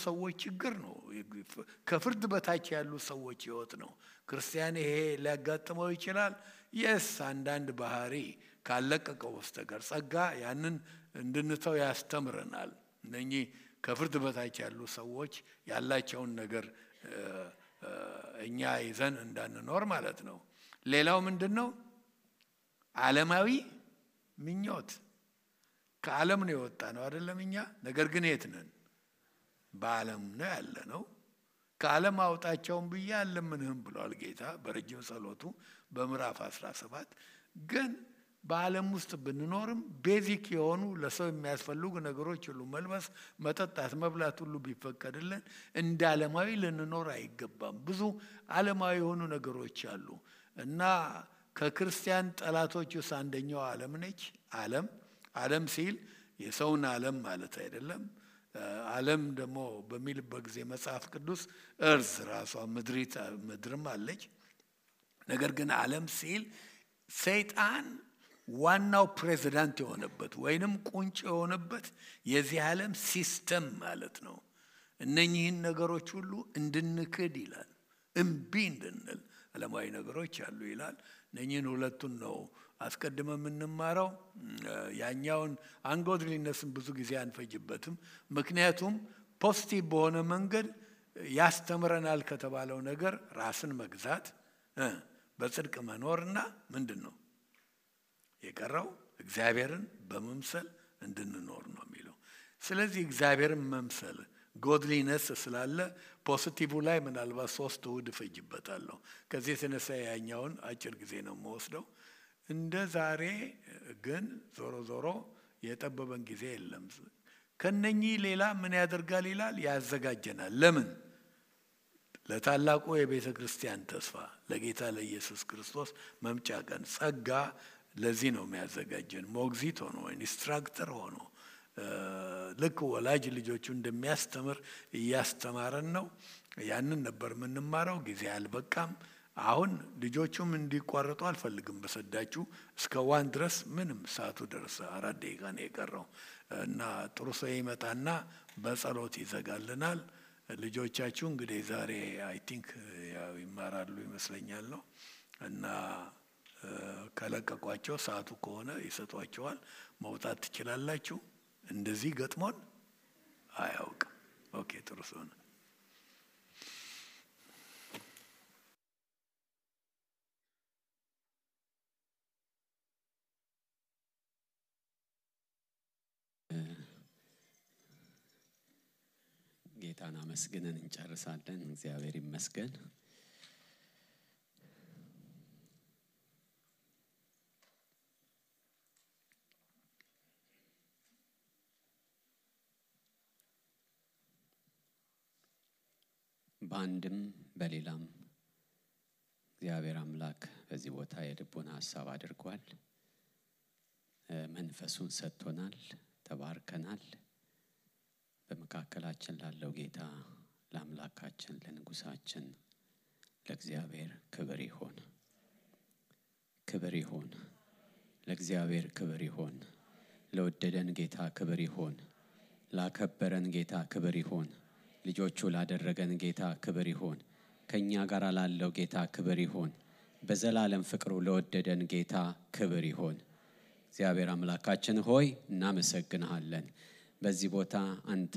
ሰዎች ችግር ነው ከፍርድ በታች ያሉ ሰዎች ህይወት ነው ክርስቲያን ይሄ ሊያጋጥመው ይችላል yes አንዳንድ ባህሪ ካለቀቀው በስተቀር ጸጋ ያንን እንድንተው ያስተምረናል እነኚህ ከፍርድ በታች ያሉ ሰዎች ያላቸውን ነገር እኛ ይዘን እንዳንኖር ማለት ነው ሌላው ምንድነው ዓለማዊ ምኞት ከዓለም ነው የወጣ ነው አይደለም እኛ ነገር ግን የት ነን በዓለም ነው ያለነው ከዓለም አውጣቸውን ብያለምንህም ብሏል ጌታ በረጅም ጸሎቱ በምዕራፍ 17 ግን በዓለም ውስጥ ብንኖርም ቤዚክ የሆኑ ለሰው የሚያስፈልጉ ነገሮች ሁሉ መልበስ መጠጣት መብላት ሁሉ ቢፈቀድልን እንደ ዓለማዊ ልንኖር አይገባም ብዙ ዓለማዊ የሆኑ ነገሮች አሉ እና ከክርስቲያን ጠላቶች ውስጥ አንደኛው ዓለም ነች ዓለም ሲል የሰውን ዓለም ማለት አይደለም ዓለም ደግሞ በሚልበት ጊዜ መጽሐፍ ቅዱስ እርዝ ራሷ ምድርም አለች ነገር ግን ዓለም ሲል ሰይጣን ዋናው ፕሬዝዳንት የሆነበት ወይንም ቁንጭ የሆነበት የዚህ ዓለም ሲስተም ማለት ነው እነኚህን ነገሮች ሁሉ እንድንክድ ይላል እምቢ እንድንል ዓለማዊ ነገሮች አሉ ይላል እነኚህን ሁለቱን ነው አስቀድመን የምንማረው ያኛውን አንጎድሊነስን ብዙ ጊዜ አንፈጅበትም ምክንያቱም ፖዚቲቭ በሆነ መንገድ ያስተምረናል ከተባለው ነገር ራስን መግዛት በጽድቅ መኖርና ምንድነው የቀረው እግዚአብሔርን በመምሰል እንድንኖር ነው የሚለው ስለዚህ እግዚአብሔርን መምሰል godliness ስላለ ፖዚቲቭ ላይ ምናልባት 3 እሁድ ፈጅበታለሁ ከዚህ የተነሳ ያኛውን አጭር ጊዜ ነው የምወስደው እንደ ዛሬ ግን ዞሮ የጠበበን ጊዜ የለም ከነኚህ ሌላ ምን ያደርጋል ይላል ያዘጋጀናል ለምን ለታላቁ የቤተ ክርስቲያን ተስፋ ለጌታ ለኢየሱስ ክርስቶስ መምጫ ቀን ጸጋ ለዚህ ነው የሚያዘጋጀን ሞግዚት ሆኖ ኢንስትራክተር ሆኖ ልክ ወላጅ ልጆቹ እንደሚያስተምር ያስተማረን ነው ያንን ነበር የምንማረው ጊዜ አልበቃም አሁን ልጆቹም እንዲቋረጡ አልፈልግም በሰዳችሁ እስከ 1 ድረስ ምንም ሰዓቱ ደረሰ 4 ደቂቃ ነው የቀረው እና ጥሩ ሰው ይመጣና በጸሎት ይዘጋልናል ልጆቻችሁ እንግዲህ ዛሬ አይ ቲንክ ያው ይማራሉ ይመስለኛል ነው እና ከለቀቋቸው ሰዓቱ ከሆነ ይሰጧቸዋል መውጣት ትችላላችሁ እንደዚህ ገጥሞን አያውቅም ኦኬ ጥሩ ሰው ነው ጌታን አመስግነን እንጨርሳለን እግዚአብሔር ይመስገን ባንድም በሌላም እግዚአብሔር አምላክ በዚህ ቦታ የልቦና ሐሳብ አድርጓል መንፈሱን ሰጥቶናል ተባርከናል በመካከላችን ላለው ጌታ ለአምላካችን ለንጉሳችን ለእግዚአብሔር ክብር ይሁን ለእግዚአብሔር ክብር ይሁን ለወደደን ጌታ ክብር ይሁን ላከበረን ጌታ ክብር ይሁን ልጆቹ ላደረገን ጌታ ክብር ይሁን ከኛ ጋር ላለው ጌታ ክብር ይሁን በዘላለም ፍቅሩ ለወደደን ጌታ ክብር ይሁን እግዚአብሔር አምላካችን ሆይ እናመሰግንሃለን በዚህ ቦታ አንተ